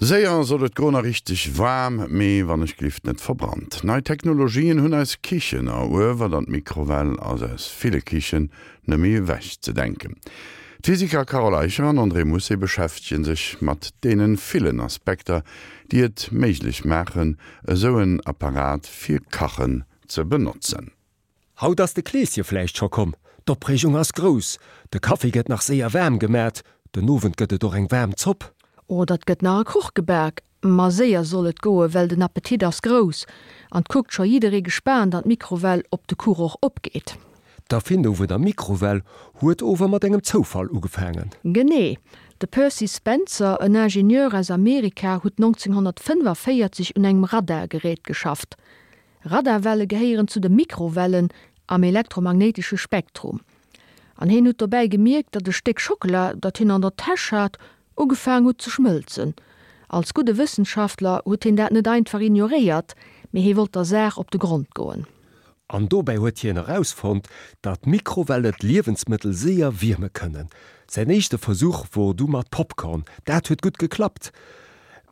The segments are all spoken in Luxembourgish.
Séier soll et goen a richteg waarm, mee wann ech glift net verbrannt. Nei Technologien hunn eis Kichen eruewert an d'Mikrowell ass aus ville Kichen net méi ewech ze denken. D'Physiker Carole Eicher an André Mousset beschäftege sech mat deene villen Aspekter, déi et méiglech maachen, esou en Apparat fir Kachen ze benotzen. Haut ass de Kleeschen vläicht scho komm, d'Opreegung ass grouss, de Kaffi gëtt nach séier waarm gemat, den Owend gëtt et och eng waarm Zopp. Oder et gëtt nach e Kuch gebak, ma séier soll et goen, well den Appetit ass grouss an 't kuckt scho jidderee gespaant an d'Mikrowell, ob de Kuch och opgeet. D'Erfindung vun der Mikrowell huet ower mat engem Zoufall ugefaangen. Genee. De Percy Spencer, en Ingenieur aus Amerika, huet 1945 un engem Radargerät geschafft. Radarwelle gehéieren zu de Mikrowellen am elektromagnéitesche Spektrum. An hien huet dobäi gemierkt, datt e Stéck Schockela, dat hien an der Täsch hat, ugefaang huet ze schmëlzen. Als gudde Wëssenschaftler huet hien dat net einfach ignoréiert, mee hie wollt der Saach op de Grond goen. An dobäi huet hien erausfonnt, datt Mikrowelle d'Liewensmëttel séier wierme kënnen. Säin éischte Versuch wor du mat Popcorn. Dat huet gutt geklappt.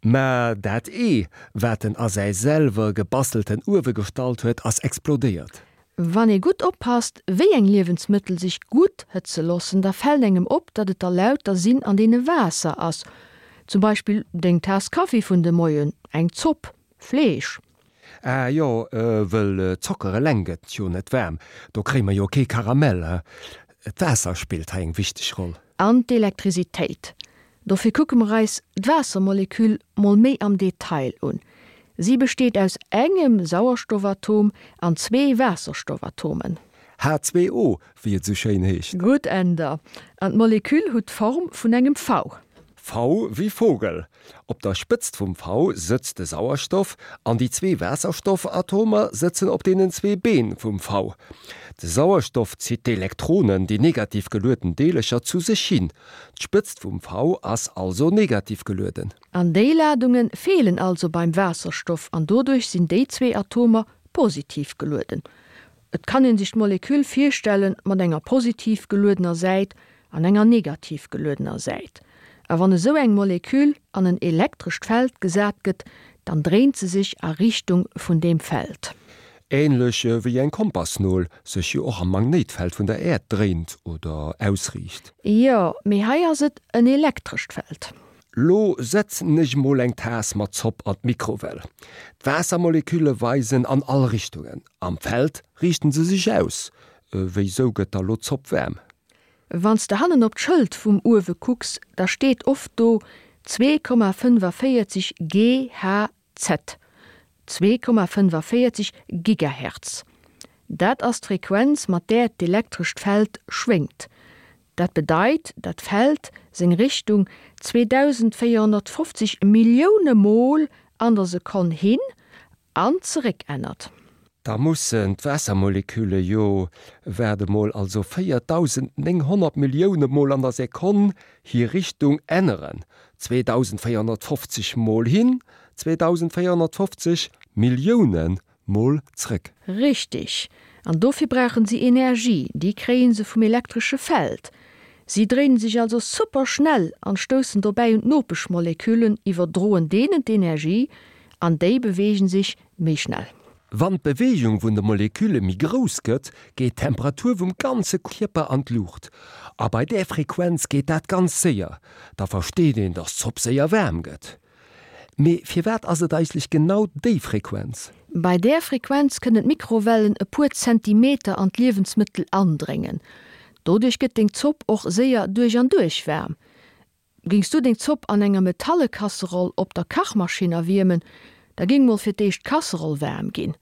Mä dat Ee, wat en a säi selwer gebastelten Uewe gestallt huet, ass explodéiert. Wann ee gutt oppasst, wéi eng Liewensmëttel sech gutt hëtze loossen, da fält engem op, datt et der lauter sinn, an deene Waasser ass. Zum Beispill deng Taass Kaffi vun de Moien, eng Zopp, Fleesch. Ah jo, wëll Zocker eleng gëtt jo net waarm, do kréie mer jo kee Karamell, he. D'Waasser spillt hei eng wichteg Roll. An d'Elektrisitéit. Dofir kucke mer eis d'Waassermoleküll mol méi am Detail un. Si besteet aus engem Sauerstoffatom an zwee Waasserstoffatomen. H2O, wéi et esou schéin heescht. Gutt, Änder. An d'Moleküll hutt d'Form vun engem V. V wéi Vogel. Op der Spëtzt vum V sëtzt de Sauerstoff an déi zwee Waasserstoffatomer sëtzen op deenen zwee Been vum V. De Sauerstoff zitt d'Elektronen, déi negativ gelueden Deelercher, zu sech hin. D'Spëtzt vum V ass also negativ gelueden. An déi Ladunge feelen also beim Waasserstoff an doduerch sinn déi zwee Atomer positiv gelueden. Et kann een sech d'Moleküll virstelle mat enger positiv geluedener Säit an enger negativ geluedener Säit. A wann esou eng Moleküll an en elektrescht Feld gesat gëtt, dann dréint se sech a Richtung vun deem Feld. Ähnlech wéi eng Kompassnol sech jo och am Magnéitfeld vun der Äerd dréint oder ausriicht. Jo, mee hei ass et en elektrescht Feld. Lo setzen ech mol eng Taass mat Zopp an d'Mikrowell. D'Waassermolekülle weisen an all Richtungen. Am Feld riichten se sech aus. Wéisou gëtt da lo d'Zopp waarm? Wann s de hannen op d'Schëld vum Uewe kucks, da steet oft do 2,45 GHz, 2,45 Gigahertz. Dat ass d'Frequenz, mat där d'elektrescht Feld schwéngt. Dat bedeit, dat d'Feld seng Richtung 2450 Millioune Mol an der Sekonn hin an zeréck ännert. Da mussen d'Waassermolekülle jo, waart emol, also 4.900 Millioune Mol an der Sekonn hir Richtung änneren, 2.450 Mol hin, 2.450 Millioune Mol zréck. Richtig. An dofir brauchen si Energie, déi kréie se vum elektresche Feld. Si dréinen sech also super schnell an stoussen dobäi un d'Nopeschmoleküllen, iwwerdroen deenen d'Energie an déi beweegen sech méi schnell. Wann d'Beweegung vun de Molekülle méi grouss gëtt, geet d'Temperatur vum ganze Kierper an d'Luucht. A bei där Frequenz geet dat ganz séier. Da versteet een, dass d'Zopp séier waarm gëtt. Mee firwat ass et eigentlech genau déi Frequenz? Bei där Frequenz kënnen d'Mikrowellen e puer Zentimeter an d'Liewensmëttel andréngen. Doduerch gëtt deng Zopp och séier duerch an duerch waarm. Géings du deng Zopp an enger metalle Kasseroll op der Kachmaschinn erwiermen, da géing mol fir d'éischt d'Kasseroll waarm ginn.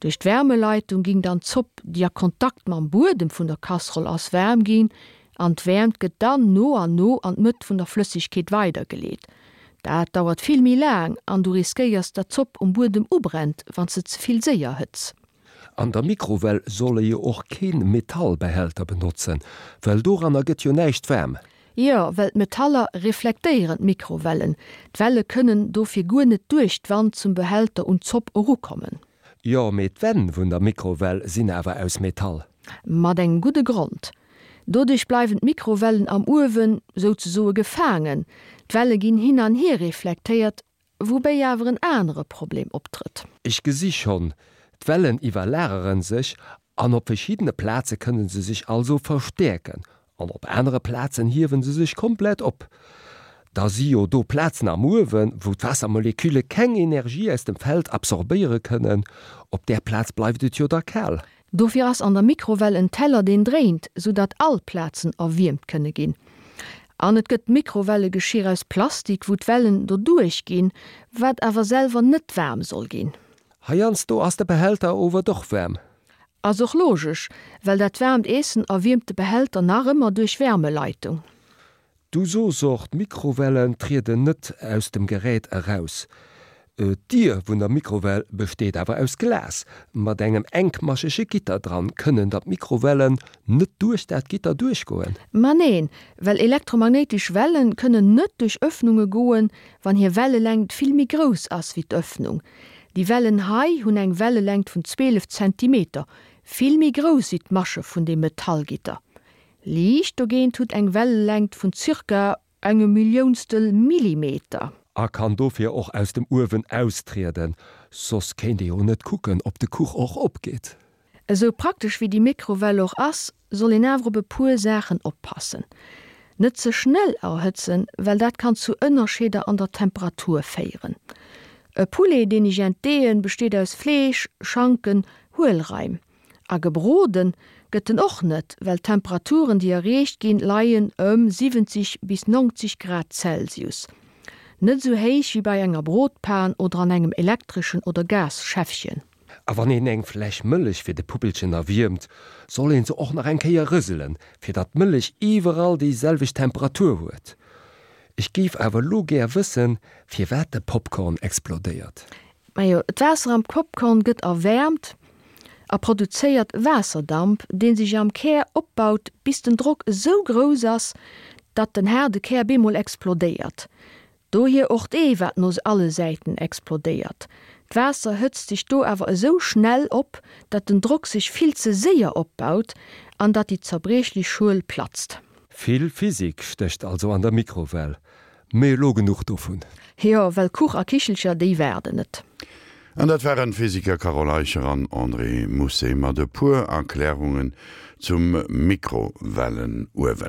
Duerch d'Wärmeleitung ging dann d'Zopp, déi a Kontakt mam Buedem vun der Kasseroll ass, waarm ginn an d'Wäermt gëtt dann no an no an d'Mëtt vun der Flëssegkeet weidergeleet. Dat dauert vill méi laang an du riskéiers, dat d'Zopp um Buedem ubrennt, wann s de ze vill séier hëtz. An der Mikrowell soll ee jo och keen Metallbehälter benotzen, well doranner gëtt jo näischt waarm. Jo, well d'Metaller reflektéieren d'Mikrowellen. D'Welle kënnen dofir guer net duerch d'Wand zum Behälter un d'Zopp erukommen. Jo, mee d'Wänn vun der Mikrowell sinn awer aus Metall. Mat engem gudde Grond. Doduerch bleiwen d'Mikrowellen am Uewen souzesoe gefaangen. D'Welle ginn hin an hier reflektéiert. Woubéi awer en anere Problem optrëtt. Ech gesi schonn, d'Wellen iwwerlageren sech an op verschiddene Plaze kënne se sech also verstäerken an op anere Plazen hiewen se sech komplett op. Da si jo do Plazen am Uewen, wou d'Waassermolekülle keng Energie aus dem Feld absorbéiere kënnen, op där Plaz bleift et jo da kal. Dofir ass an der Mikrowell en Teller deen dréint, sou datt all Plazen erwiermt kënne ginn. An et gëtt Mikrowellegeschir aus Plastik, wou d'Wellen doduerch ginn, wat awer selwer net waarm soll ginn. Heiansdo ass de Behälter ower doch waarm. Ass och logesch, well dat waarmt Eessen erwiermt de Behälter nach ëmmer duerch Wärmeleitung. Du soos och, d'Mikrowellen trieden net aus dem Gerät eraus. D'Dier vun der Mikrowell besteet awer aus Glas mat engem enkmaschege Gitter dran. Kënnen da d'Mikrowellen net duerch dat Gitter duerchgoen? Ma neen, well elektromagnéitesch Wellen kënnen net duerch Öffnunge goen, wann hir Wellelängt vill méi grouss ass wéi d'Öffnung. Déi Wellen hei hunn eng Wellelängt vun 12 Zentimeter, vill méi grouss wéi d'Masche vun deem Metallgitter. Liicht dogéint hutt eng Wellelängt vun zirka engem Milliounstel Millimeter. A kann dofir och aus dem Uewen austrieden, soss kéint ee jo net kucken, ob de Kuch och opgeet. Esou praktesch wéi déi Mikrowell och ass, soll een awer op e puer Saachen oppassen. Net ze schnell erhëtzen, well dat kann zu Ënnerscheeder an der Temperatur féieren. E Poulet deen ech entdeeën, besteet aus Fleesch, Schanken, Huelraim. A gebroden gëtt en och net, well d'Temperaturen déi erreecht ginn, leien ëm 70 bis 90 Grad Celsius. Net esou héich wéi bei enger Brotpan oder an engem elektreschen oder Gas-Schäffchen. A wann een eng Fläsch Mëllech fir de Puppelchen erwiermt, soll een se och nach eng Kéier rëselen, fir datt d'Mëllech iwwerall déi selwecht Temperatur huet. Ech géif awer elo gär wëssen, firwat de Popcorn explodéiert. Majo, d'Waasser am Popcorn gëtt erwäermt a produzéiert Waasserdamp, dee sech am Kär opbaut, bis den Drock esou grouss ass, datt den haarde Kär bemol explodéiert. Dohier och d'Ee, wat no alle Säiten explodéiert. D'Waasser hëtzt sech do awer esou schnell op, datt den Drock sech vill ze séier opbaut an datt déi zerbriechlech Schuel platzt. Vill Physik stécht also an der Mikrowell. Mee elo genuch dovun. Jo, well Kuch a Kichelcher, déi waarden net. An dat waren d'Physiker Carole Eicher an André Mousset mat e puer Erklärungen zum Mikrowellenuewen.